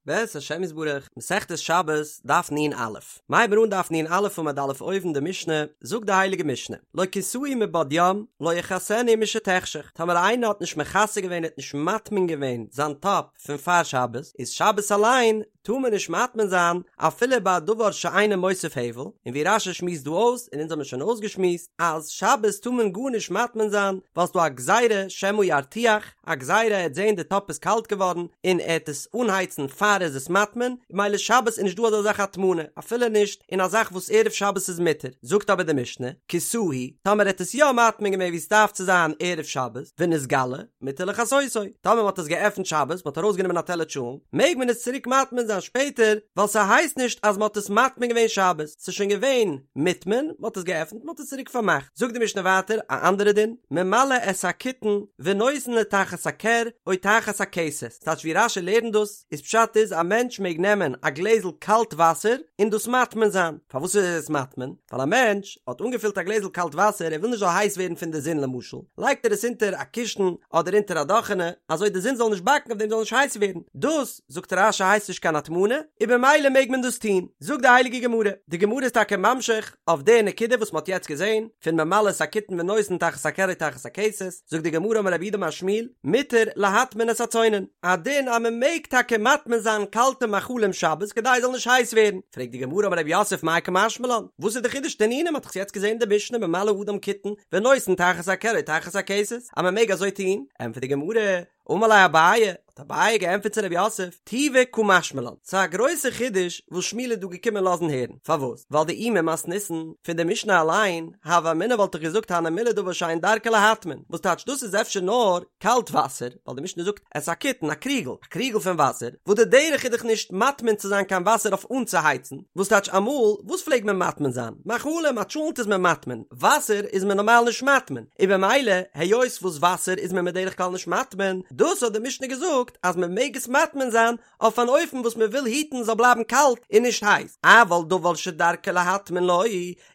בעזרת השם יתברך, מסכת שבת, דף נ"א. מ'הייבן אן דף נ"א עמוד א' אויבן די משנה, זאגט די הייליגע משנה, לא כסהו מבעוד יום, לא יכסנו משתחשך, טאמער איינער האט נישט מכסה געווען האט נישט מטמין געווען זיין טאפ פון פאר שבת, איז שבת אליין טאר מען נישט מטמין זיין אפילו ביי א דבר שאינו מוסיף הבל, און ווי רש"י שמועסט דא אויס, און אונז האבן שוין אויסגעשמועסט, אז שבת טאר מען גארנישט מטמין זיין, ווייל ס'דא א גזירה שמא ירתיח, א גזירה ער העט זעהן די טאפ איז קאלט געווארן און ער העט עס אנהייצן פאר ער איז עס מטמין, ממילא שבת איז נישט דא אזא זאך הטמנה, אפילו נישט אין א זאך וואס ערב שבת איז מותר, זאגט אבער די משנה, כסהו, טאמער ער האט עס יא מטמין געווען ווי עס דארף צו זיין ערב שבת, ונתגלה, מותר לכסותו, טאמער מען האט עס געעפנט שבת, מען האט ארויסגענומען א טעלער טשולנט, מעג מען עס צוריק מטמין זיין שפעטער, ווייל ס'הייסט נישט אז מען האט עס מטמין געווען שבת, ס'איז שוין געווען מוטמן, מען האט עס געעפנט, מען האט עס צוריק פארמאכט. זאגט די משנה ווייטער א אנדערע דין, ממלא את הקיתון ונותן לתחת הכר או תחת הכסת, ס'טייטש ווי רש"י לערנט דאס, איז פשט איז א מענטש מעג נעמען א גלעזל קאלט וואסער און דאס מטמין זיין, פארוואס איז עס מטמין? ווייל א מענטש האט אנגעפילט א גלעזל קאלט וואסער ער וויל נישט זאל הייס ווערן פון די זון למשל, לייגט ער עס אונטער א קישן אדער אונטער א דאכענע אזוי די זון זאל נישט באקן אויף דעם זאל נישט הייס ווערן, דאס זאגט רש"י הייסט נישט קיין הטמנה, און במילא מעג מען דאס טון, זאגט די הייליגע גמרא, די גמרא איז טאקע ממשיך אויף די נקודה וואס מען האט יעצט געזען, פון ממלא את הקיתון ונותן תחת הכר או תחת הכסת, זאגט די גמרא אמר רב יהודה אמר שמואל, מותר להטמין את הצונן, א דין אז מען מעג טאקע מטמין זיין קאלטע מאכלים שבת כדי עס זאל נישט הייס ווערן, פרעגט די גמרא אמר רב יוסף מאי קא משמע לן, וואס איז די חידוש תנינא מען האט דאך יעצט געזען די משנה ממלא אדם קיתון ונותן תחת הכר או תחת הכסת, אז מען מעג אזוי טון, ענטפערט די גמרא, אמר ליה אביי, האט אביי געענטפערט צו רב יוסף, טובא קא משמע לן, ס'איז א גרויסע חידוש וואס שמואל איז דא געקומען לאזן הערן, פארוואס? ווייל דאי ממתניתין, פון די משנה אליין, הוה אמינא וואלט איך געזאגט הני מילי דבר שאין דרכו להטמין, וואס טייטש דאס איז אפשר נאר קאלט וואסער, ווייל די משנה זאגט את הקיתון, א קריגל, א קריגל פון וואסער, וואס די דרך איז דאך נישט מטמין צו זיין קיין וואסער אויף אנצוהייצן, וואס טייטש אמאל, וואס פלעגט מען מטמין זיין? מאכלים, א טשולנט איז מען מטמין, וואסער איז מען נארמאל נישט מטמין, און במילא היות וואס וואסער איז מען בדרך כלל נישט מטמין, דאס האט די משנה געזאגט אז מען מעג עס מטמין זיין אויף אן אופן וואס מען וויל היטן זאל בלייבן קאלט און נישט הייס, אבל דבר שדרכו להטמין לא,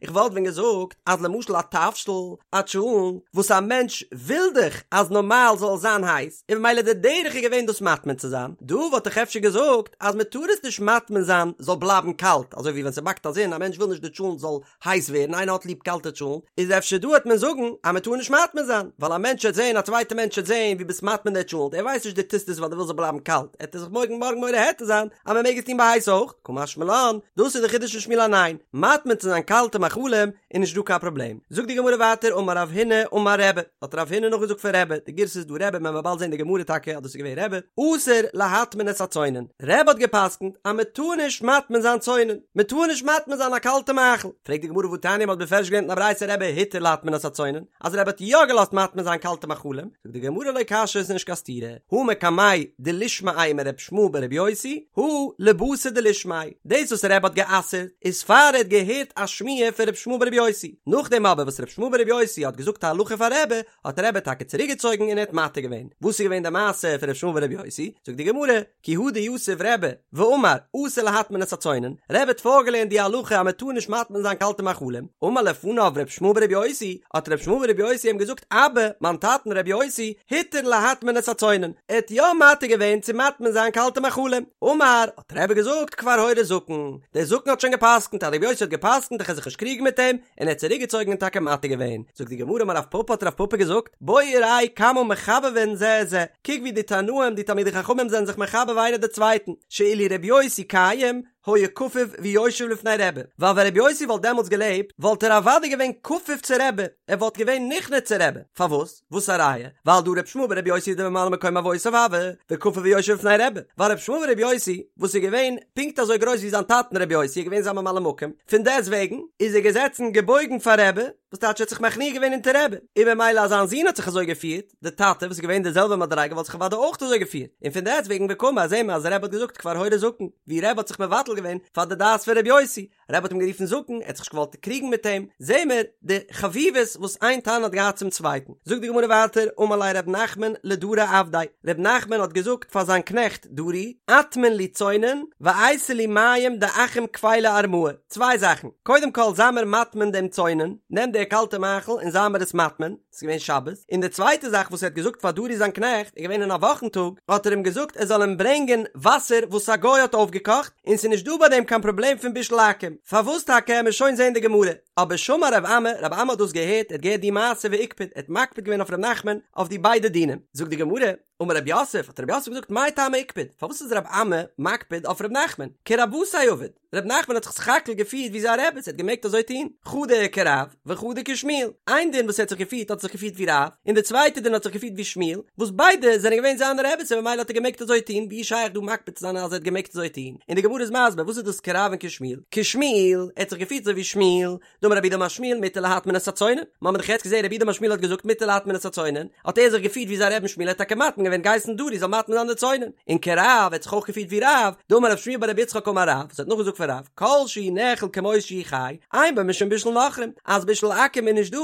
איך וואלט ווען געזאגט אז למשל א תבשיל, א טשולנט, וואס א מענטש וויל דאך אז נארמאל זאל עס זיין הייס, און במילא די דרך איז געווען דאס מטמין צו זיין, דא וואלט איך אפשר געזאגט אז מען טאר עס נישט מטמין זיין זאל בלייבן קאלט, אזוי ווי ווען ס'באקט א זון, א מענטש וויל נישט די טשולנט זאל הייס ווערן, איינער האט ליב קאלטע טשולנט, איז אפשר דא העט מען זאגן אז מען טאר נישט מטמין זיין, ווייל א מענטש העט זען, א צווייטע מענטש העט זען ווי ביסט מטמין די טשולנט, ער ווייסט נישט דו טוסט עס ווייל דו ווילסט זאל בלייבן קאלט, העט ער זיך מארגן מארגן מורה היתר זיין אז מען מעג עס טון ביי הייס אויך, קא משמע לן, דאס איז די חידוש פון שמואל אז ניין, מטמין צו זיין קאלטע מאכלים איז נישט דא קיין פראבלעם. זאגט די גמרא ווייטער אמר רב הונא אמר רבי, האט רב הונא נאכגעזאגט פון רבי, די גירסא איז דא רבי, מען וועט באלד זען די גמרא טאקע אז דאס איז געווען רבי, אסור להטמין את הצונן, רבי האט געפסקנט אז מען טאר נישט מטמין זיין צונן, מען טאר נישט מטמין זיין א קאלטע מאכל, פרעגט די גמרא והתניא מען האט בפירוש געלערנט אין א ברייתא רבי התיר להטמין את הצונן, אז רבי האט יא געלאזט מטמין זיין קאלטע מאכלים, זאגט די גמרא לא קשיא עס איז נישט קיין סתירה, הא מקמיה דלישמעיה מר' ישמעאל בר' יוסי, הא לבתר דלישמעיה, דאס וואס רבי האט גע'אסר'ט איז פאר ער האט געהערט א שמועה פון ר' ישמעאל בר' יוסי, נאכדעם אבער וואס ר' ישמעאל בר' יוסי האט געזאגט א הלכה פאר רבי, האט רבי טאקע צוריק געצויגן און ער האט מתיר געווען. וואס איז געווען די מעשה פון ר' ישמעאל בר' יוסי? זאגט די גמרא, כי הא דיתיב רבי ואמר אסור להטמין את הצונן, רבי האט פארגעלערנט די הלכה אז מען טאר נישט מטמין זיין קאלטע מאכלים, אמר לפניו ר' ישמעאל בר' יוסי, האט ר' ישמעאל בר' יוסי אים געזאגט אבא, מיין טאטן ר' יוסי, התיר להטמין את הצונן, ער האט יא מתיר געווען צו מטמין זיין קאלטע מאכלים, אמר, האט רבי געזאגט כבר הורה זקן, דער זקן האט שוין גע'פסק'נט אז ר' יוסי האט גע'פסק'נט איך וועל זיך נישט קריגן מיט אים, און ער האט צוריק געצויגן און טאקע מתיר געווען, זאגט די גמרא אמר רב פפא האט רב פפא געזאגט, בוא וראה כמה מחבבין זה את זה, קוק ווי די תנאים די תלמידי חכמים זענען זיך מחבב איינער די צווייטן, שאילו רבי יוסי קיים היה כפוף ויושב לפני רבי, ווייל ווען רבי יוסי וואלט דעמאלטס געלעבט וואלט ער אוודאי געווען כפוף צו רבי, ער וואלט געווען נכנע צו רבי, פארוואס? וואס א ראיה? ווייל דהא רבי ישמעאל ברבי יוסי דממלא מקום אבותיו הוה, וכפוף ויושב לפני רבי, ווייל רבי ישמעאל ברבי יוסי וואס איז געווען פונקט אזוי גרויס ווי זיין טאטן רבי יוסי איז געווען זיין ממלא מקום, פון דעסט וועגן איז ער געזעצן געבויגן פאר רבי, וואס טייטש ער האט זיך מכניע געווען אונטער רבי, און במילא אז זיין זון האט זיך אזוי געפירט, די טאטע וואס איז געווען די זעלבע מדריגה וואלט זיך אוודאי אויך אזוי געפירט, און פון דעסט וועגן וקאמר זעהן מיר אז רבי האט געזאגט כבר הורה זקן, ווי רבי האט זיך מבטל געווען פאר די דעת פון רבי יוסי. רבי האט אים גערופן זקן, ער האט זיך נישט געוואלט קריגן מיט אים, זעהן מיר די חביבות וואס איין תנא האט געהאט צום צווייטן. זאגט די גמרא ווייטער, אמר ליה ר' נחמן לדרי עבדיה, ר' נחמן האט געזאגט פאר זיין קנעכט דרי, אטמין לי צונן, ואייתי לי מים דעכו"ם קבילי ארמאי, צוויי זאכן, קודם כל זיי מיר מטמין דעם צונן, נעם די קאלטע מאכל און זיי מיר עס מטמין, ס'איז געווען שבת, און די צווייטע זאך וואס ער האט געזאגט פאר דרי זיין קנעכט, איז געווען אין א וואכן טאג, האט ער אים געזאגט ער זאל אים ברענגען וואסער וואס א גוי האט אויפגעקאכט, און ס'איז נישט דא ביי דעם קיין פראבלעם פון בישול עכו"ם, פארוואס טאקע עמיר שוין זען די גמרא, אבער שמע רב אמי, רב אמי האט דאס געהערט, ער האט געהערט די מעשה ואיקפד, ער האט מקפיד געווען אויף ר' נחמן אויף די ביידע דינים, זאגט די גמרא, אמר רב יוסף, האט רב יוסף געזאגט מאי טעמא איקפד, פארוואס איז רב אמי מקפיד אויף ר' נחמן, כרבוותיה עביד, ר' נחמן האט זיך סך הכל געפירט ווי זיין רעבעס, ער האט געמעגט אזוי טון, חדא כרב וחדא כשמואל, איין דין וואס ער האט זיך געפירט האט ער זיך געפירט ווי רב, און די צווייטע דין האט זיך געפירט ווי שמואל, וואס ביידע זענען געווען זיינע רעבעס און ממילא האט ער געמעגט אזוי טון, ווי איז שייך דא מקפיד צו זיין אז ער האט געמעגט אזוי טון, און די גמרא איז מסביר וואס איז דאס כרב און כשמואל, כשמואל, ער האט זיך געפירט אזוי ווי שמואל, דאמר רב יהודה אמר שמואל מותר להטמין את הצונן, מ'האמיר דאך יעצט געזען רב יהודה אמר שמואל האט געזאגט מותר להטמין את הצונן, האט ער זיך געפירט ווי זיין רבי'ן שמואל האט טאקע מטמין געווען געהייסן דרי זאל מטמין זיין די צונן, און כרב האט זיך אויך געפירט ווי רב, דאמר רב שמואל בר רב יצחק אמר רב, וואס האט נאכגעזאגט פון רב, כל שהוא נאכל כמות שהוא חי, אין בו משום בישול נכרים, אז בישול עכו"ם איז נישט דא,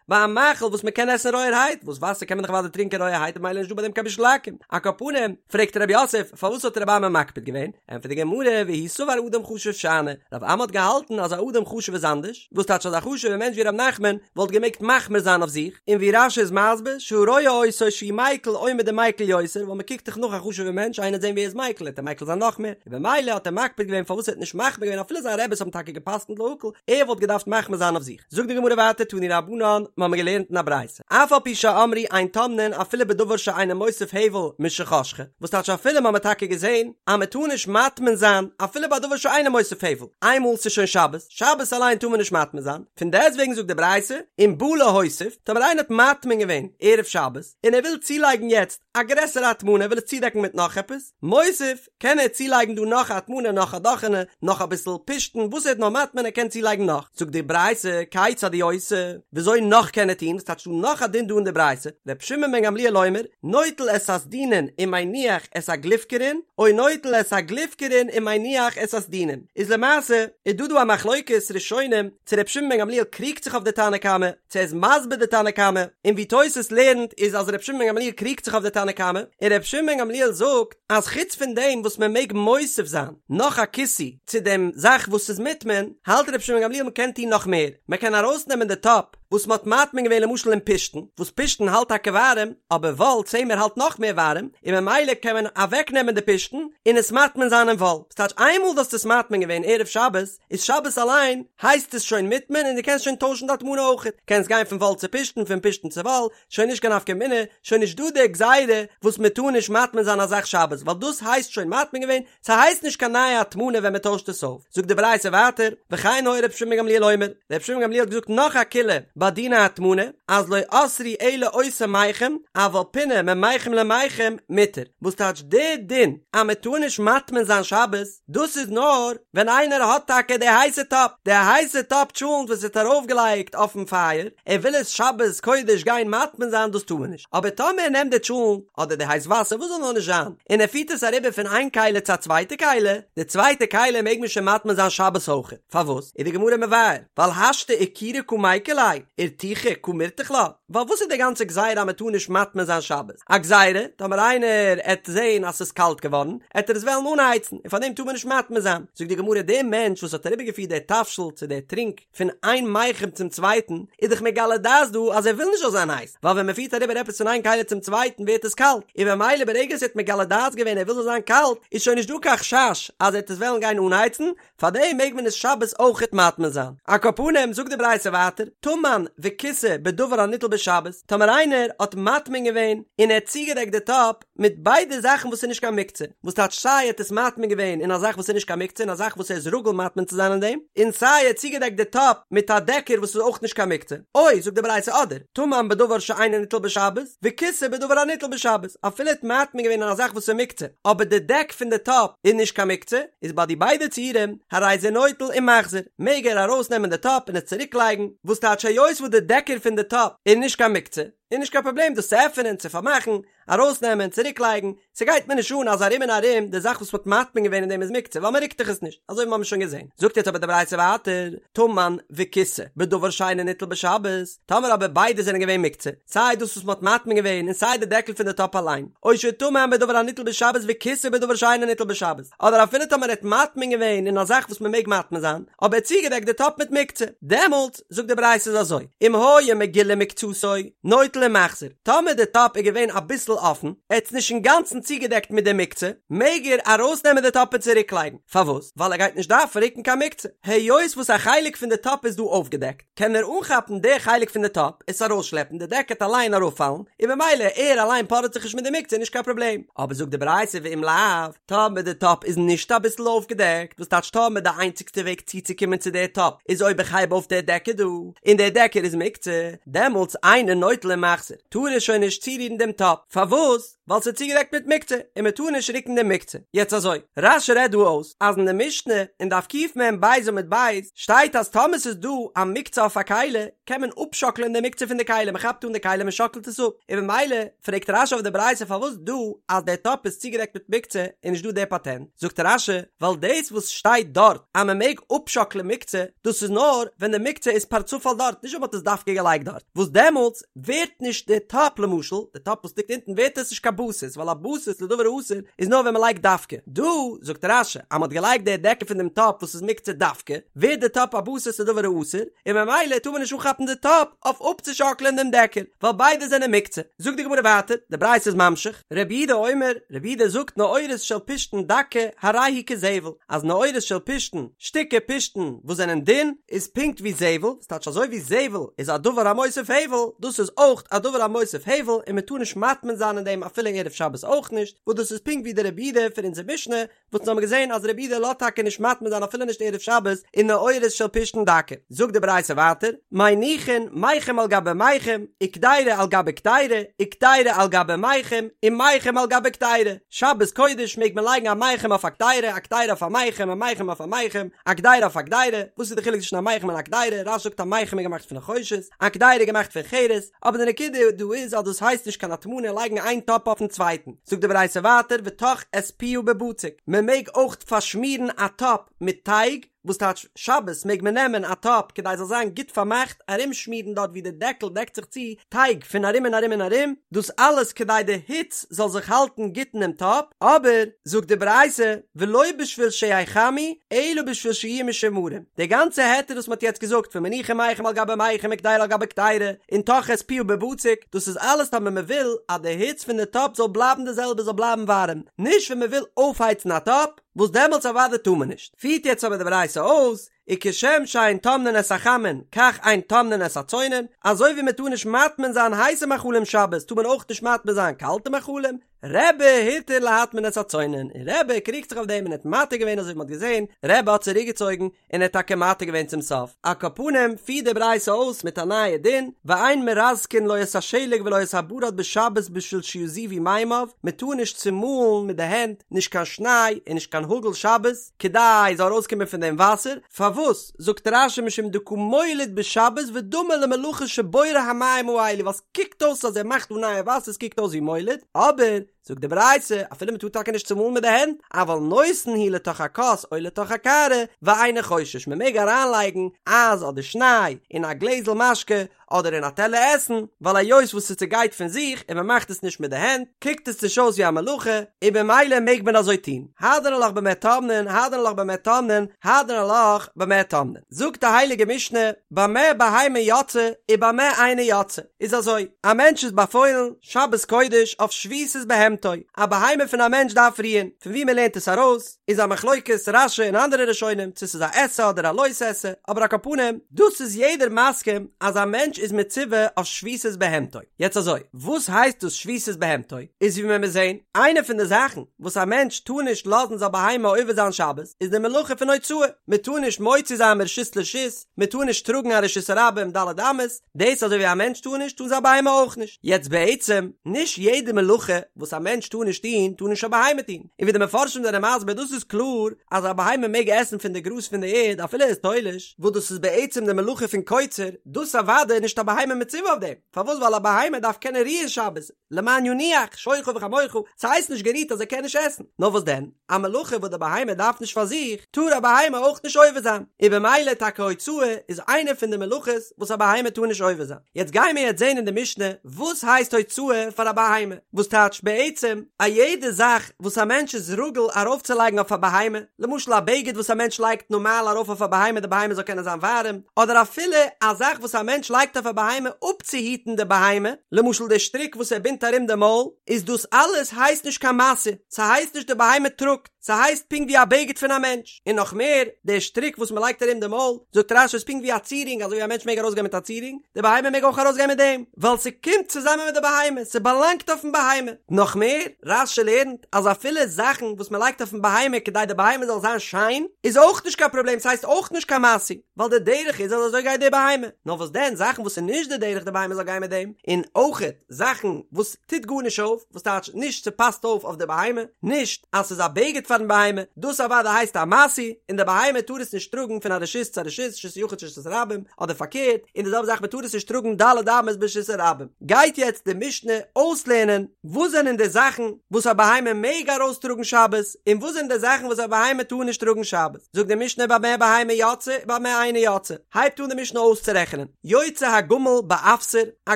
ביי א מאכל וואס מען קען עסן רויערהייט, וואס וואסער קען מען דאך אוודאי טרינקען רויערהייט ממילא איז נישט דא ביי דעם קיין בישול עכו"ם. על כל פנים, פרעגט רב יוסף, פארוואס האט רב אמי מקפיד געווען? ענטפערט די גמרא, והוא סבר אדם חשוב שאני, רב אמי האט געהאלטן אז א אדם חשוב איז אנדערש, וואס טייטש אז א חשוב'ער מענטש ווי ר' נחמן וואלט געמעגט מחמיר זיין אויף זיך, און ווי רש"י איז מסביר, שהרואה אותו שהוא מיקל עומד ומיקל יותר, ווייל מען קוקט דאך נאך א חשוב'ער מענטש, איינער וועט זען ווי ער איז מיקל, וועט ער מיקל זיין נאך מער, און במילא האט ער מקפיד געווען פארוואס ער האט נישט מחמיר געווען אפילו זיין רעבעס האבן טאקע גע'פסק'נט להקל, ער וואלט געדארפט מחמיר זיין אויף זיך. זאגט די גמרא ווייטער תנו רבנן, מ'האמיר געלערנט אין א ברייתא, אף על פי שאמרו אין טומנין אפילו בדבר שאינו מוסיף הבל משחשכה, וואס טייטש אפילו מ'האמיר טאקע געזען אז מ'טאר נישט מטמין זיין אפילו ביי דבר שאינו מוסיף הבל, איינמאל ס'איז שוין שבת, שבת אליין טאר מען נישט מטמין זיין, פון דעסטוועגן זאגט די ברייתא, אם בא להוסיף, טאמער איינער האט מטמין געווען ערב שבת, און ער וויל צולייגן יעצט א גרעסערע הטמנה, ער וויל עס צודעקן מיט נאך עפעס, מוסיף, קען ער צולייגן דא נאך א הטמנה נאך א דאכענע נאך אביסל פשתן וואס ער האט נאר מטמין ער קען צולייגן נאך זאגט די ברייתא כיצד הוא עושה וויאזוי נאך קען ער טון וואס טייטש דא נאך א דין דא אין די ברייתא ר' שמעון בן גמליאל אומר נוטל את הסדינין ומניח את הגלופקרין או נוטל את הגלופקרין ומניח את הסדינין איז למעשה איז דא דא א מחלוקת ראשונים צו ר' שמעון בן גמליאל קריגט זיך אויף די תנא קמא צו ער איז מסביר די תנא קמא און ווי תוס' לערנט איז אז ר' שמעון בן גמליאל קריגט זיך אויף די תנא קמא און ר' שמעון בן גמליאל זאגט אז חוץ פון דעם וואס מען מעג מוסיף זיין נאך א כיסוי צו דעם זאך וואס איז מוטמן, האלט רבי שמעון גמליאל מען קען טון נאך מער, מען קען ארויסנעמען די טאפ וואס מען האט מטמין געווען למשל אין פשתן, וואס פשתן האלט טאקע ווארעם, אבער וואל צמר האלט נאך מער ווארעם, און ממילא קען מען אוועקנעמען די פשתן און עס מטמין זיין אין וואל, ס'טייטש איינמאל דו האסט עס מטמין געווען ערב שבת, איז שבת אליין הייסט עס שוין מוטמן און דו קענסט שוין טוישן די הטמנה אויכעט, קענסט גיין פון וואל צו פשתן, פון פשתן צו וואל, שוין נישט קיין נפקא מינה, שוין נישט דא די גזירה וואס מען טאר נישט מטמין זיין א זאך שבת, ווייל דאס הייסט שוין מטמין געווען, ס'הייסט נישט קיין נייע הטמנה ווען מען טוישט עס אויף. זאגט די ברייתא ווייטער, וכן היה רבי שמעון בן גמליאל אומר, רבי שמעון בן גמליאל האט געזאגט נאך א קולא ביי דיני הטמנה, אז לא אסרו אלא אותו מיחם, אבל פינה ממיחם למיחם מותר, וואס טייטש די דין אז מען טאר נישט מטמין זיין שבת, דאס איז נאר ווען איינער האט טאקע די הייסע טאפ, די הייסע טאפ טשולנט וואס ער האט ארויפגעלייגט אויפן פייער, ער וויל עס שבת קודש גיין מטמין זיין דאס טאר מען נישט, אבער טאמער ער נעמט די טשולנט אדער די הייס וואסער וואס זאל נאר נישט זיין, און ער פירט עס אריבער פון איין כלי צו א צווייטע כלי, די צווייטע כלי מעג מען שוין מטמין זיין שבת אויכעט, פארוואס? איז די גמרא מבאר, ווייל השתא אכורי קא מיקר ליה, ארתוחי קא מרתח לה, ווייל וואס איז די גאנצע גזירה אז מען טאר נישט מטמין זיין שבת? א גזירה, טאמער איינער עט זעהן אז ס'איז קאלט געווארן, עט ער עס וועלן אנהייצן, און פארדעם טאר מען נישט מטמין זיין. זאגט די גמרא, דער מענטש וואס האט אריבערגעפירט דער תבשיל צו דער טרינק פון איין מיחם צום צווייטן, איז דאך מגלה דעת דא אז ער וויל נישט זאל זיין הייס, ווייל ווען מען פירט אריבער עפעס פון איין כלי צום צווייטן ווערט עס קאלט, און במילא ברגע עס האט מגלה דעת געווען ער וויל זאל זיין קאלט, איז שוין נישט דא קיין חשש אז ער עט עס וועלן גיין אנהייצן, פארדעם מעג מען עס שבת אויכעט מטמין זיין. על כל פנים זאגט די ברייתא ווייטער, טמן וכיסה בדבר הניטל בשבת, טאמער איינער האט מטמין געווען און ער האט צוגעדעקט די טאפ מיט ביידע זאכן וואס איז נישט קיין מוקצה, וואס טייטש סיי ער האט עס מטמין געווען אין א זאך וואס איז נישט קיין מוקצה אין א זאך וואס ער איז רגיל מטמין צו זיין אין דעם, און סיי ער האט צוגעדעקט די טאפ מיט א דעקער וואס איז אויך נישט קיין מוקצה, או זאגט די ברייתא אדער, טמן בדבר שאינו ניטל בשבת, וכיסה בדבר הניטל בשבת, אפילו ער האט מטמין געווען אין א זאך וואס איז מוקצה, אבער די דעק פון די טאפ איז נישט קיין מוקצה, איז ביי די ביידע ציורים, הרי זה נוטל ומחזיר, מעג ער ארויס נעמען די טאפ און עס צוריק לייגן, וואס טייטש היות וואס די דעקער פון די טאפ איז נישט קיין מוקצה. איז נישט קיין פראבלעם דאס צו עפענען, צו פארמאכן, ארויסנעמען, צוריקלייגן, ס'גייט מיר נישט אן אז ארום און ארום די זאך וואס מ'האט מטמין געווען אין דעם איז מוקצה ווייל מ'רוקט דאך עס נישט, אזוי ווי מ'האמיר שוין געזען. זאגט יעצט אבער די ברייתא ווייטער, טמן וכיסה בדבר שאינו ניטל בשבת, טאמער אבער ביידע זענען געווען מוקצה, סיי דאס וואס מ'האט מטמין געווען און סיי די דעקל פון די טאפ אליין, או שטמן בדבר הניטל בשבת וכיסה בדבר שאינו ניטל בשבת, אדער אפילו טאמער ער האט מטמין געווען אין א זאך וואס מ'מעג מטמין זיין, אבער ער האט צוגעדעקט די טאפ מיט מוקצה, דעמאלטס, זאגט די ברייתא איז אזוי, אם היה מגולה מקצתו, נוטל ומחזיר, טאמער די טאפ איז געווען אביסל אפן, ער האט עס נישט אינגאנצן צוגעדעקט מיט די מוקצה, מעג ער ארויסנעמען די טאפ און צוריקלייגן, פארוואס? ווייל ער גייט נישט דארפן רוקן קיין מוקצה, היות וואס א חלק פון די טאפ איז דא אויפגעדעקט, קען ער אנכאפן די חלק פון די טאפ, עס ארויסשלעפן, די דעק העט אליין אראפפאלן, און במילא ער אליין פארעט זיך נישט מיט די מוקצה נישט קיין פראבלעם. אבער זאגט די ברייתא ואם לאו, טאמער די טאפ איז נישט אביסל אויפגעדעקט, וואס טייטש טאמער די איינציגסטע וועג צוצוקומען צו די טאפ איז אויב איך הייב אויף די דעקער דא, און די דעקער איז מוקצה, דעמאלטס אינו נוטל ומחזיר, טאר ער שוין נישט צורירן דעם טאפ, פארוואס? ווייל ס'איז צוגעדעקט מיט מוקצה, און מ'טאר נישט רוקן דעם מוקצה. יעצט אזוי, רש"י רעדט דא אויס, אז אין די משנה, אין דף קמ"ב עמוד ב', שטייט אז טאמער ס'איז דא א מוקצה אויף א כלי, קען מען אפשאקלען די מוקצה פון די כלי, מ'כאפט אן די כלי מ'שאקלט עס אפ, און במילא פרעגט רש"י אויף די ברייתא פארוואס דא אז דער טאפ איז צוגעדעקט מיט מוקצה איז נישט דא דער פאטענט, זאגט רש"י, ווייל דאס וואס שטייט דארט אז מ'מעג אפשאקלען מוקצה, דאס איז נאר ווען די מוקצה איז פארצופאל דארט, נישט ווען מ'האט עס דווקא געלייגט דארט, וואס דעמאלטס ווערט נישט די טאפ למשל, די טאפ וואס ליגט אונטן ווערט עס נישט קיין בסיס, ווייל א בסיס לדבר האסור איז נאר ווען מען לייגט דווקא. דא זאגט רש"י אז מען האט געלייגט די דעקל פון דעם טאפ וואס איז מוקצה דווקא, ווערט די טאפ א בסיס לדבר האסור, און ממילא טאר מען נישט אנכאפן די טאפ אויף אפצושאקלען דעם דעקל, ווייל ביידע זענען מוקצה. זאגט די גמרא ווייטער, די ברייתא איז ממשיך, רבי יהודה אומר, רבי יהודה זאגט נעורת של פשתן דקה הרי היא כזבל, אז נעורת של פשתן, שטיקער פשתן וואס זענען דין, איז פונקט ווי זבל, ס'טייטש אזוי ווי זבל איז א דבר המוסיף הבל, דאס איז אויך א דבר המוסיף הבל און מען טאר נישט מטמין זיין אין דעם אפילו ערב שבת אויך נישט, וואס דאס איז פונקט ווי די רבי יהודה פון אונזער משנה, וואס אונז האבן געזען אז רבי יהודה לאזט טאקע נישט מטמין זיין אפילו נישט ערב שבת אין נעורת של פשתן דקה. זאגט די ברייתא ווייטער, מניחין מיחם על גבי מיחם, וקדירה על גבי קדירה, וקדירה על גבי מיחם, ומיחם על גבי קדירה, שבת קודש מעג מען לייגן א מיחם אויף א קדירה, א קדירה אויף א מיחם, א מיחם אויף א מיחם, א קדירה אויף א קדירה, וואס איז די חילוק צווישן א מיחם און א קדירה, רש"י זאגט א מיחם איז געמאכט פון נחושת, א קדירה איז געמאכט פון חרס, אבער די נקודה דא איז אז דאס הייסט נישט קיין הטמנה לייגן איין טאפ אויפן צווייטן, זאגט די ברייתא ווייטער וטח את פיה בבצק, מען מעג אויך פארשמירן א טאפ מיט טייג, וואס טייטש שבת מעג מען נעמען א טאפ כדי ס'זאל זיין גוט פארמאכט ארומשמירן דארט ווי די דעקל דעקט זיך צו טייג פון ארום און ארום און ארום, דאס אלעס כדי די היץ זאל זיך האלטן גוט אינעם טאפ, אבער, זאגט די ברייתא, ולא בשביל שיחמו, אלא בשביל שיהיו משומרים, די גאנצע היתר וואס מ'האט יעצט געזאגט פון מניחין מיחם על גבי מיחם וקדירה על גבי קדירה, און טח את פיה בבצק, דאס איז אלעס טאמער מ'וויל אז די היץ פון די טאפ זאל בלייבן די זעלבע זאל בלייבן ווארעם, נישט ווען מ'וויל אויפהייצן א טאפ, וואס דעמאלטס אוודאי טאר מען נישט. פירט יעצט אבער די ברייתא אויס, וכשם שאין טומנין את החמין כך אין טומנין את הצונן, אזוי ווי מען טאר נישט מטמין זיין הייסע מאכלים שבת טאר מען אויך נישט מטמין זיין קאלטע מאכלים, רבי התיר להטמין את הצונן, און רבי קריגט זיך אויף דעם און האט מתיר געווען אזוי ווי מען האט געזען, רבי האט צוריק געצויגן און ער האט טאקע מתיר געווען צום סוף. על כל פנים פירט די ברייתא אויס מיט א נייע דין, ואין מרזקין לא את השלג ולא את הברד בשבת בשביל שיזובו מימיו, מען טאר נישט צומאלן מיט די הענט נישט קיין שניי און נישט קיין האגל שבת, כדי זאל ארויסקומען פון דעם וואסער, פארוואס זאגט רש"י משום דקא מוליד בשבת ודמי למלאכה שבורא המים האלו ווייל ס'קוקט אויס אז ער מאכט דא נייע וואסער ס'קוקט אויס ווי מוליד, אבער זאגט די ברייתא אפילו מ'טאר טאקע נישט צומאלן מיט די הענט, אבל נותן הוא לתוך הכוס או לתוך הקערה ואינו חושש מ'מעג אריינלייגן אייז אדער שניי אין א גלעזל משקה אדער אין א טעלער עסן, ווייל היות וואס ס'צעגייט פון זיך און מ'מאכט עס נישט מיט די הענט, קוקט עס נישט אויס ווי א מלאכה, און במילא מעג מען אזוי טון. הדרן עלך במה טומנין, הדרן עלך במה טומנין, הדרן עלך במה טומנין. זאגט די הייליגע משנה, במה בהמה יוצאה ובמה אינה יוצאה. איז אזוי, א מענטש איז באפוילן, שבת קודש, אויף שביתת בהמתו, א בהמה פון א מענטש דארף רוען, פון וואו מ'לערנט עס ארויס, איז א מחלוקת רש"י און אנדערע ראשונים צו ס'איז א עשה אדער א לא תעשה, אבער על כל פנים, דאס איז יעדער מסכים אז א מענטש איז מצווה אויף שביתת בהמתו. יעצט אזוי, וואס הייסט דאס שביתת בהמתו? איז ווי מען מוז זען, איינע פון די זאכן וואס א מענטש טאר נישט לאזן זיין בהמה עובר זיין שבת, איז די מלאכה פון הוצאה, מען טאר נישט מוציא זיין מרשות לרשות, מען טאר נישט טראגן א רשות הרבים ד' אמות, דאס אזוי ווי א מענטש טאר נישט, טאר זיין בהמה אויך נישט. יעצט בעצם, נישט יעדע מלאכה וואס א. מענטש טאר נישט טון, טאר נישט א בהמה טון. און ווי די מפרשים זענען מסביר דאס איז קלאר אז א בהמה מעג עסן פון די גראז פון די ערד אפילו ער איז תולש, וואס דאס איז בעצם די מלאכה פון קוצר, דאס אוודאי איז נישט א בהמה מצווה אויף דעם, פארוואס ווייל א בהמה דארף קענען רוען שבת, למען ינוח שורך וחמורך, ס'הייסט נישט גערוהט אז ער קען נישט עסן, נאר וואס דען, א מלאכה וואס די בהמה דארף נישט פאר זיך, טאר א בהמה אויך נישט עובר זיין, און במילא טאקע הוצאה איז איינע פון די מלאכות וואס א בהמה טאר נישט עובר זיין. יעצט גייען מיר יעצט זעהן אין די משנה וואס הייסט הוצאה פאר א בהמה, וואס טייטש בעצם א יעדע זאך וואס א מענטש איז רגיל ארויפצולייגן אויף א בהמה, למשל א בגד וואס א מענטש לייגט נארמאל ארויף אויף א בהמה די בהמה זאל קענען זיין ווארעם, אדער אפילו א זאך וואס א מענטש לייגט אויף א בהמה אפצוהיטן די בהמה, למשל די שטריק וואס ער בינדט ארום די מויל, איז דאס אלעס הייסט נישט קיין משא, ס'הייסט נישט די בהמה טראגט, ס'הייסט פונקט ווי א בגד פון א מענטש, און נאך מער, די שטריק וואס מ'לייגט ארום די מויל, זאגט רש"י איז פונקט ווי א צירונג, אזוי ווי א מענטש מעג ארויסגיין מיט א צירונג, די בהמה מעג אויך ארויסגיין מיט דעם, ווייל ס'קומט צוזאמען מיט די בהמה, ס'באלאנגט אויפן בהמה. נאך מער, רש"י לערנט אז אפילו זאכן וואס מ'לייגט אויפן בהמה כדי די בהמה זאל זיין שיין, איז אויך נישט קיין פראבלעם, ס'הייסט אויך נישט קיין משוי, ווייל די דרך איז אז אזוי גייט די בהמה. נאר וואס דען, זאכן וואס איז נישט די דרך די בהמה זאל גיין מיט דעם, און אויכעט זאכן וואס טוט גארנישט אויף, וואס טייטש נישט ס'פאסט אויף אויף די בהמה, נישט אז ס'איז א בגד פארן בהמה, דאס אוודאי הייסט א משוי, און די בהמה טאר עס נישט טראגן פון א רשות צו א רשות, רשות היחיד צו רשות הרבים, אדער פארקערט, און די זעלבע זאך מ'טאר עס נישט טראגן ד' אמות ברשות הרבים. גייט יעצט די משנה אויסלערנען וואס זענען די זאכן וואס א בהמה מעג ארויסטראגן שבת, און וואס זענען די זאכן וואס א בהמה טאר נישט טראגן שבת. זאגט די משנה במה בהמה יוצאה ובמה אינה יוצאה, הייבט אן די משנה אויסצורעכענען, יוצא הגמל באפסר, א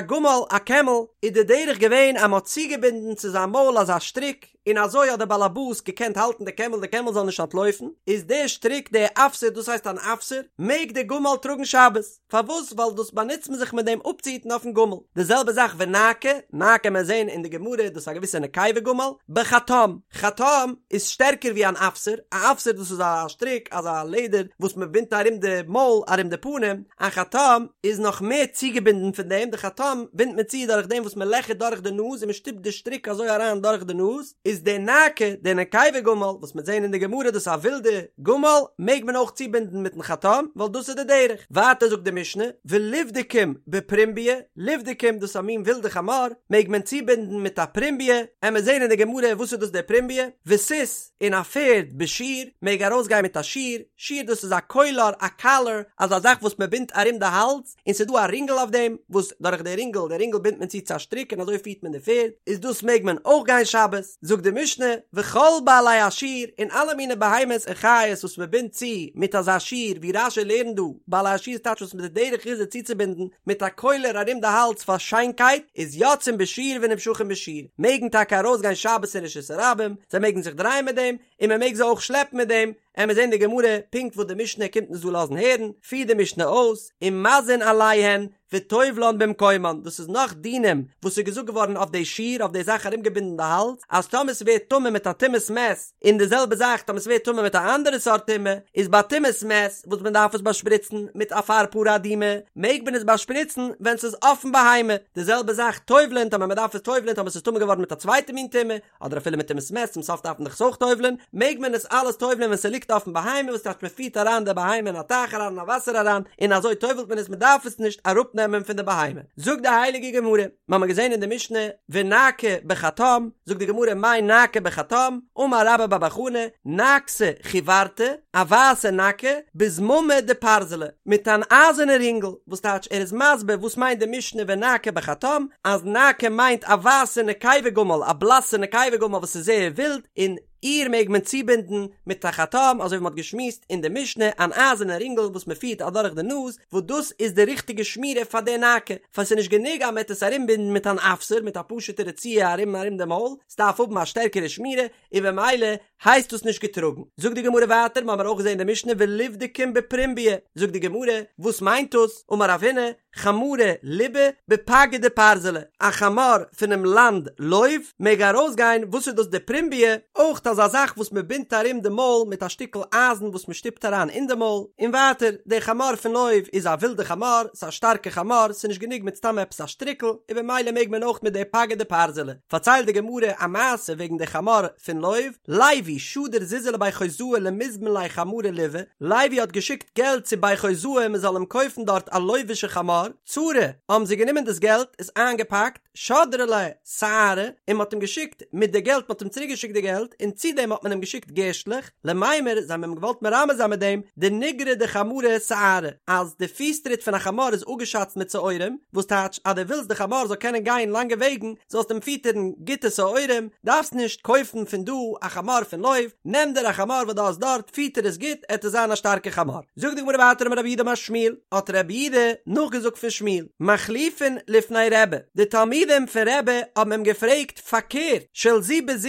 גמל, א קעמל, איז די דרך געווען אז מען האט צוגעבינדן צו זיין מויל אזא שטריק, און אזוי האט דער באלעבאס געקענט האלטן די קעמל די קעמל זאל נישט אנטלויפן, איז דער שטריק דער אפסר דאס הייסט אן אפסר, מעג דער גמל טראגן שבת, פארוואס ווייל דאס באנוצט מען זיך מיט דעם אפצוהיטן אויפן גמל, די זעלבע זאך ונאקה, נאקה מיר זעהן אין די גמרא דאס איז א געוויסע נקבה גמל, בחטם, חטם איז שטערקער ווי אן אפסר, א אפסר דאס איז א שטריק אזא לעדער וואס מען בינדט ארום די מויל ארום די פנים, א חטם איז נאך מער צוגעבינדן פון דעם, די חטם בינדט מען צו דורך דעם וואס מען לעכערט דורך די נאז און מען שטופט די שטריק אזוי אריין דורך די נאז, איז די נאקה, די נקבה גמל, וואס מ'עט זעהן אין די גמרא דאס איז א ווילדע גמל, מעג מען אויך צובינדן מיטן חטם, ווייל דאס איז די דרך. ווייטער זאגט די משנה, ולבדקים בפרומביא, לבדקים דאס איז א מין ווילדע חמור, מעג מען צובינדן מיט א פרומביא, עמיר זעהן אין די גמרא וואס איז דאס די פרומביא, וסוס, און א פערד בשיר, מעג ארויסגיין מיט א שיר, שיר דאס איז א קולר, א קאלער, אזא זאך וואס מען בינדט ארום די האלז, און ס'איז דא א רינגל אויף דעם, וואס דורך די רינגל, די רינגל בינדט מען צו צו א שטריק און אזוי פירט מען די פערד, איז דאס מעג מען אויך גיין שבת, זאגט די משנה, וכל בעלי השיר, און אלע מיני בהמות און חיות וואס מען בינדט צו מיט אזא שיר, ווי רש"י לערנט דא, בעלי השיר טייטש וואס מיט די דרך איז עס צוצובינדן מיט א קולר ארום די האלז פאר שיינקייט, איז יוצאים בשיר ונמשכים בשיר, מעגן טאקע ארויסגיין שבת אין רשות הרבים, זיי מעגן זיך דרייען מיט דעם, און מען מעג זיי אויך שלעפן מיט דעם, עמיר זעהן די גמרא פונקט וואס די משנה קומט אונז דא לאזן הערן, פירט די משנה אויס, ומזין עליהן וטובלן במקומן, דאס איז נאך דינים וואס איז געזאגט געווארן אויף די שיר, אויף די זאך ארומגעבינדן די האלז, אז טאמער ס'ווערט טמא מיט א טומאת מת, און די זעלבע זאך טאמער ס'ווערט טמא מיט א אנדערע סארט טומאה, איז ביי טומאת מת וואס מען דארף עס באשפריצן מיט אפר פרה אדומה, מעג מען עס באשפריצן ווען ס'איז אויפן בהמה, די זעלבע זאך טובל'ען טאמער מען דארף עס טובל'ען טאמער ס'איז טמא געווארן מיט א צווייטע מין טומאה, אדער אפילו מיט טומאת מת צום סוף דארף מען דאך עס אויך טובל'ען, מעג מען עס אלעס טובל'ען ווען ס'ליגט אויפן בהמה, וואס טייטש מען פירט אריין די בהמה אין א טייך אריין אין א וואסער אריין, און אזוי טובל'ט מען עס מען דארף עס נישט אראפנעמען פון די בהמה. זאגט די הייליגע גמרא, מיר האבן געזען אין די משנה, ונאקה בחטם, זאגט די גמרא מאי נאקה בחטם, אמר רבה בר בר חנה, נאקתא חיורתא, א ווייסע נאקה, בזממא דפרזלא, מיט אן אייזערנע רינגל, וואס טייטש ער איז מסביר וואס מיינט די משנה ונאקה בחטם, אז נאקה מיינט א ווייסע נקבה גמל, א בלאסע נקבה גמל וואס איז זייער ווילד, און איר מעג מען צובינדן מיט א חטם, אזוי ווי מען האט געשמועסט אין די משנה, אן אייזערנע רינגל וואס מען פירט אדורך די נאז, וואס דאס איז די ריכטיגע שמירה פאר די נאקה, פאר ס'איז נישט גענוג אז מען וועט עס ארומבינדן מיט אן אפסר, מיט א פשוטע רצועה ארום ארום דעם מויל, ס'דארף האבן א שטערקערע שמירה, און במילא הייסט דאס נישט געטראגן. זאגט די גמרא ווייטער, מ'האמער אויך געזען אין די משנה ולבדקים בפרומביא, זאגט די גמרא, וואס מיינט דאס, אמר רב הונא, חמרא לובא בפגא דפרזלא, א חמור פונעם לאנד לוב מעג ארויסגיין, וואס איז דאס די פרומביא? אויך אזא זאך וואס מ'בינדט ארום די מויל מיט א שטיקל אייזן וואס מ'שטופט אריין אין די מויל, און ווייטער, די חמור פון לוב איז א ווילדע חמור, ס'איז א שטארקע חמור, ס'איז נישט גענוג מיט סתם עפעס א שטריקל, און במילא מעג מען אויך מיט די פגא דפרזלא. פארציילט די גמרא א מעשה וועגן די חמור פון לוב, לוי שדר זוזי לבי חוזאי למיזבן ליה חמרא לובא, לוי האט געשיקט געלט צו בי חוזאי מען זאל אים קויפן דארט א לובישע חמור. חמור, צרי, האבן זיי גענומען דאס געלט, עס איינגעפאקט, שדרו ליה שערי, און מ'האט אים געשיקט מיט די געלט, מ'האט אים צוריק געשיקט די געלט, און צו דעם האט מען אים געשיקט גערשטלעך, למימר, זיי האבן אים געוואלט מרמז זיין מיט דעם, דניגרי דחמרא שערי, אז די פיס טריט פון א חמור איז אפגעשאצט מיט שעורים, וואס טייטש אז דו ווילסט די חמור זאל קענען גיין לאנגע וועגן, זאלסט אים פיטערן גוטע שעורים, דארפסט נישט קויפן פון דא א חמור פון לוב, נעם דיר א חמור וואס דו האסט דארט, פיטער עס גוט, עט עס זיין א שטארקע חמור. זאגט די גמרא ווייטער אמר רב יהודה אמר שמואל, האט רב יהודה נאכגעזאגט פון שמואל, מחליפין לפני רבי, די תלמידים פון רבי האבן אים געפרעגט פארקערט, של זו בזו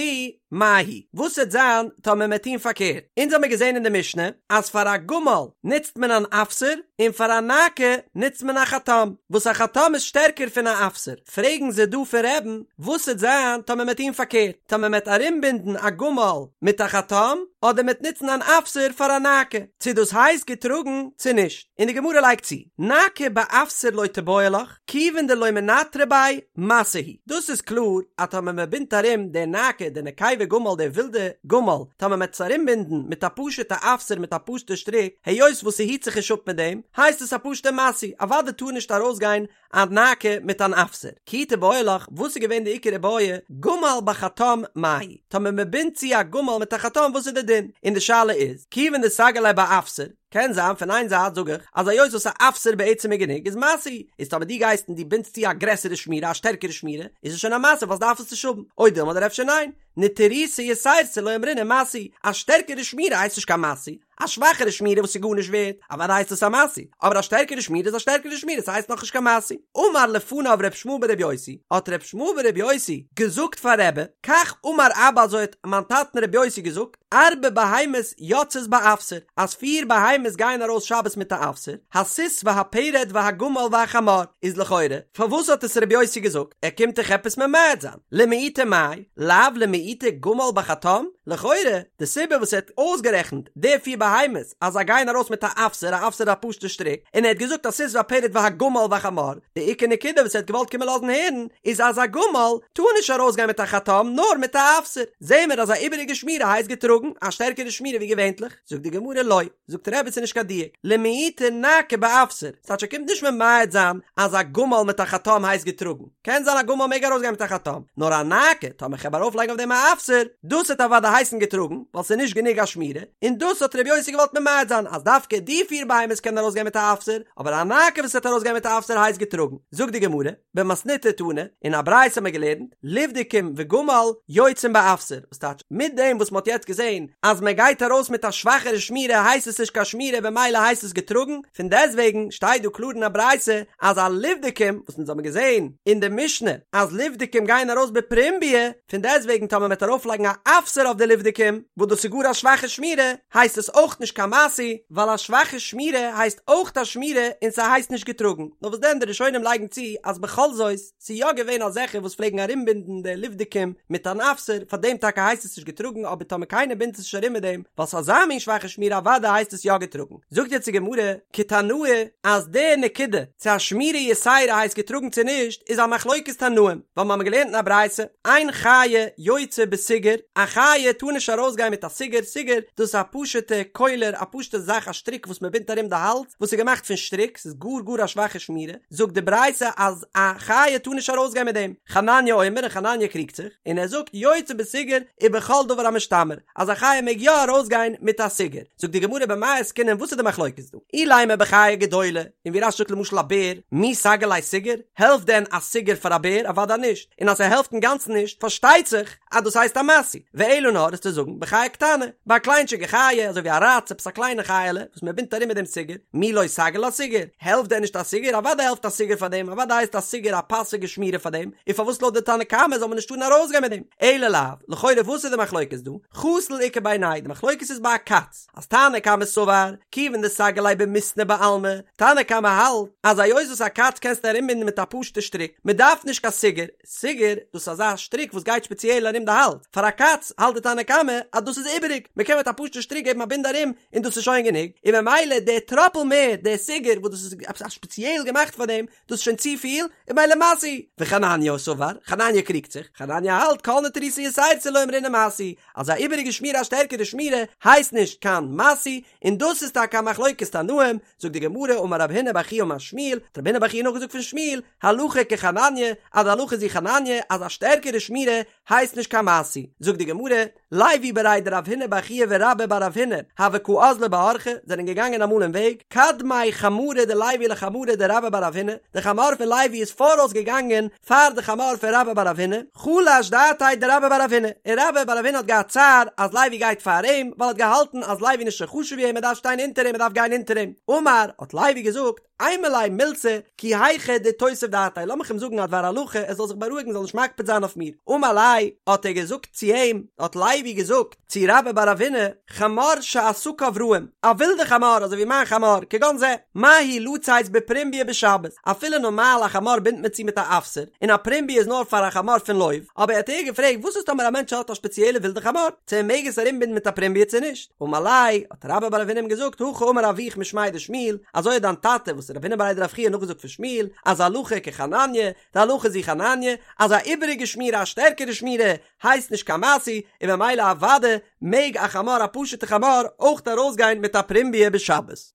מהו, וואס וועט זיין טאמער מ'עט טון פארקערט? אונז האמיר געזען אין די משנה אז פאר א גמל נוצט מען אן אפסר, און פאר א נאקה נוצט מען א חטם, וואס א חטם איז שטערקער פון א אפסר. פרעגן זיי דא פון רבי'ן, וואס וועט זיין טאמער מ'עט טון פארקערט, טאמער מ'עט ארומבינדן א גמל מיט א חטם, אדער מ'עט נוצן אן אפסר פאר א נאקה, צו דאס הייסט געטראגן צו נישט? און די גמרא לייגט צו, נאקה באפסר לא תיבעי לך, כיוון דלא מנטרא ביה, משא הוא. דאס איז קלאר אז טאמער מען בינדט ארום די נאקה, די נקבה גמל, די ווילדע גמל, טאמער מען וועט עס ארומבינדן מיט א פשוטע אפסר מיט א פשוטע שטריק, היות וואס ס'היט זיך נישט אפ מיט דעם, הייסט עס א פשוטע משאוי, אוודאי טאר נישט ארויסגיין א נאקה מיט אן אפסר. כי תיבעי לך, וואס איז געווען די עיקר איבעיא, גמל בחטם מהו, טאמער מען בינדט צו א גמל מיט א חטם וואס איז די דין? און די שאלה איז, כיוון דסגי ליה באפסר, קען זיין פון איין זייט זאג איך אז היות וואס א אפסר בעצם איז גענוג איז משאוי, איז טאמער דו גייסט און דו בינדסט צו א גרעסערע שמירה א שטערקערע שמירה איז עס שוין א משא ווייל דארף עס נישט האבן, או דילמא אדער אפשר ניין, נטירותא יתירתא לא אמרינן משאוי, א שטערקערע שמירה הייסט נישט קיין משאוי, א שוואכערע שמירה וואס איז גארנישט ווערט, אוודאי הייסט עס א משאוי, אבער א שטערקערע שמירה איז א שטערקערע שמירה ס'הייסט נאכנישט קיין משאוי. אמר לפניו ר' ישמעאל בר' יוסי, האט ר' ישמעאל בר' יוסי געזאגט פאר רבי, כך אמר אבא אזוי האט מיין טאטן ר' יוסי געזאגט, ארבע בהמות יוצאות באפסר, אז פיר בהמות גייען ארויס שבת מיט א אפסר, הסוס והפרד והגמל והחמור, איז לכאורה, פארוואס האט עס רבי יוסי געזאגט? ער קומט דאך עפעס ממעט זיין, למעוטי מאי, לאו למעוטי גמל בחטם? לכאורה, די סיבה וואס ער האט אויסגערעכנט די פיר בהמות אז זיי גייען ארויס מיט א אפסר, א אפסר איז א פשוטע שטריק, און ער האט געזאגט הסוס והפרד והגמל והחמור, די עיקר נקודה וואס ער האט געוואלט קומען לאזן הערן איז אז א גמל טאר נישט ארויסגיין מיט א חטם נאר מיט א אפסר. זעהן מיר אז א איבעריגע שמירה הייסט געטראגן, א שטערקערע שמירה ווי געווענטליך, זאגט די גמרא לא, זאגט רבי ס'איז נישט קיין דיוק, למעוטי נאקה באפסר, ס'טייטש ער קומט נישט ממעט זיין אז א גמל מיט א חטם הייסט געטראגן, קען זיין א גמל מעג ארויסגיין מיט א חטם, נאר א נאקה, טאמער כ'העב ארויפלייגן אויף דעם א אפסר, דאס וועט אוודאי הייסן געטראגן, ווייל ס'איז נישט גענוג א שמירה, און דאס האט רבי יוסי געוואלט ממעט זיין אז דווקא די פיר בהמות קענען ארויסגיין מיט א אפסר, אבער א נאקה וואס וועט ארויסגיין מיט א אפסר הייסט געטראגן, זאגט די גמרא. במתניתא תנא, אין א ברייתא האט מען געלערנט, לבדקים וגמל יוצאים באפסר, וואס טייטש, מיט דעם וואס מען האט יעצט געזען אז מען גייט ארויס מיט א שוואכערע שמירה הייסט עס נישט קיין שמירה במילא הייסט עס געטראגן, פון דעסטוועגן שטייט דא קלאר אין א ברייתא אז א לבדקים, וואס אונז האבן געזען אין די משנה אז לבדקים גייען ארויס בפרומביא, פון דעסטוועגן טאמער מען וועט ארויפלייגן א אפסר אויף די לבדקים, וואס דאס איז גאר א שוואכע שמירה, הייסט עס אויך נישט קיין משאוי, ווייל א שוואכע שמירה הייסט אויך א שמירה און ס'הייסט נישט געטראגן, נאר וואס דען די ראשונים לייגן צו אז בכל זאת ס'איז יא געווען אזעלכע וואס פלעגן ארומבינדן די לבדקים מיט אן אפסר, פארדעם טאקע הייסט עס נישט געטראגן אבער טאמער קיינער בינדט עס נישט ארום מיט דעם ווייל ס'איז אזא מין שוואכע שמירה אוודאי הייסט עס יא געטראגן. זאגט יעצט די גמרא, כתנאי, אז די נקודה צו א שמירה יתירה הייסט געטראגן צו נישט איז א מחלוקת תנאים, ווייל מ'האמיר געלערנט אין א ברייתא, אין חיה יוצאה בסוגר, א חיה טאר נישט ארויסגיין מיט א סוגר, סוגר, דאס איז א פשוטע קולר, א פשוטע זאך א שטריק וואס מ'בינדט ארום די האלז, וואס איז געמאכט פון שטריק, ס'איז גאר גאר א שוואכע שמירה, זאגט די ברייתא אז א חיה טאר נישט ארויסגיין מיט דעם, חנניה אומר און חנניה קריגט זיך, און ער זאגט יוצאה בסוגר ובכל דבר המשתמר, אז א חיה מעג יא ארויסגיין מיט א סוגר. זאגט די גמרא במאי עסקינן וואס איז די מחלוקת דא? אילימא בחיה גדולה, און ווי רש"י זאגט למשל א בער, מי סגי ליה סוגר? העלפט דען א סוגר פאר א בער? אוודאי נישט, און אז ס'העלפט אינגאנצן נישט פארשטייט זיך אז דאס הייסט א משאוי, ואלא נאר איז צו זאגן בחיה קטנה, ביי א קליינטשיגע חיה אזוי ווי א ראץ עפעס א קליינע חיה'לע וואס מען בינדט ארום מיט דעם סוגר, מי לא סגי לה סוגר? העלפט דען נישט א סוגר? אוודאי העלפט א סוגר פאר דעם, אוודאי הייסט א סוגר א פאסיגע שמירה פאר דעם, און פארוואס לויט די תנא קמא זאל מען נישט טארן ארויסגיין מיט דעם? אלא לאו, לכאורה וואס איז די מחלוקת דא? חתול איכא בינייהו, די מחלוקת איז ביי א קאץ, אז תנא קמא סבר, כיוון דסגי ליה במיסנא בעלמא, תנא קמא האלט אז היות וואס א קאץ קענסטו ארומבינדן מיט א פשוטע שטריק, מען דארף נישט קיין סוגר, סוגר, דאס איז אזא שטריק וואס גייט שפעציעל ארום די האלז, פאר א קאץ האלט די תנא קמא אז דאס איז איבעריג, מען קען מיט א פשוטע שטריק געבן א בינד ארום און דאס איז שוין גענוג, און ממילא דער טראפל מער, דער סוגר וואס דאס איז עפעס א שפעציעל געמאכט פאר דעם, דאס איז שוין צופיל, און ממילא משאוי. וחנניה סבר, חנניה קריגט זיך, חנניה האלט כל נטירותא יתירתא לא אמרינן משאוי, אז א איבעריגע שמירה א שטערקערע שמירה הייסט נישט קיין משאוי, און דאס איז טאקע א מחלוקת תנאים. תנאים, זאגט די גמרא אמר רב הונא בר חייא אמר שמואל, האט רב הונא בר חייא נאכגעזאגט פון שמואל, הלכה כחנניה, אז די הלכה איז ווי חנניה, אז א שטערקערע שמירה הייסט נישט קיין משוי. זאגט די גמרא, לוי בריה דרב הונא בר חייא ורבה בר רב הונא, הוו קא אזלי באורחא, זענען געגאנגען אמאל אין וועג, קדמיה חמרא דלוי לחמרא דרבה בר רב הונא, די חמור פון לוי איז פאראויס געגאנגען פאר די חמור פון רבה בר רב הונא, חלש דעתיה דרבה בר רב הונא, און רבה בר רב הונא האט געהאט צער אז לוי גייט פאר אים, ווייל ער האט געהאלטן אז לוי איז נישט אזוי חשוב ווי אים, ער דארף שטיין אונטער אים, ער דארף גיין אונטער אים. אמר, האט לוי געזאגט, אימא ליה מילתא, כי היכי דאיתותב דעתיה, לאמיך אים זאגן א דבר הלכה, ער זאל זיך בארואיגן, זאל נישט מקפיד זיין אויף מיר. אמר ליה, האט ער געזאגט צו אים, האט לוי געזאגט צו רבה בר רב הונא, חמור שעסקיו רעים, א ווילדע חמור אזוי ווי מיין חמור, כגון זה, מהו לצאת בפרומביא בשבת, אפילו נארמאל א חמור בינדט מען צו מיט א אפסר, און א פרומביא איז נאר פאר א חמור פון לוב, אבער האט ער געפרעגט וואס איז טאמער א מענטש האט א שפעציעלע ווילדע חמור, צו ער מעג עס ארומבינדן מיט א פרומביא צו נישט, אמר ליה, האט רבה בר רב הונא אים געזאגט, הכי אמר אבוך משמיה דשמואל, אזוי האט דיין טאטע וואס איז רב הונא בריה דרב חייא נאכגעזאגט פון שמואל, אז הלכה כחנניה, די הלכה איז ווי חנניה, אז א איבעריגע שמירה א שטערקערע שמירה הייסט נישט קיין משוי, און במילא אוודאי מעג א חמור א פשוטע חמור אויך ארויסגיין מיט א פרומביא בשבת.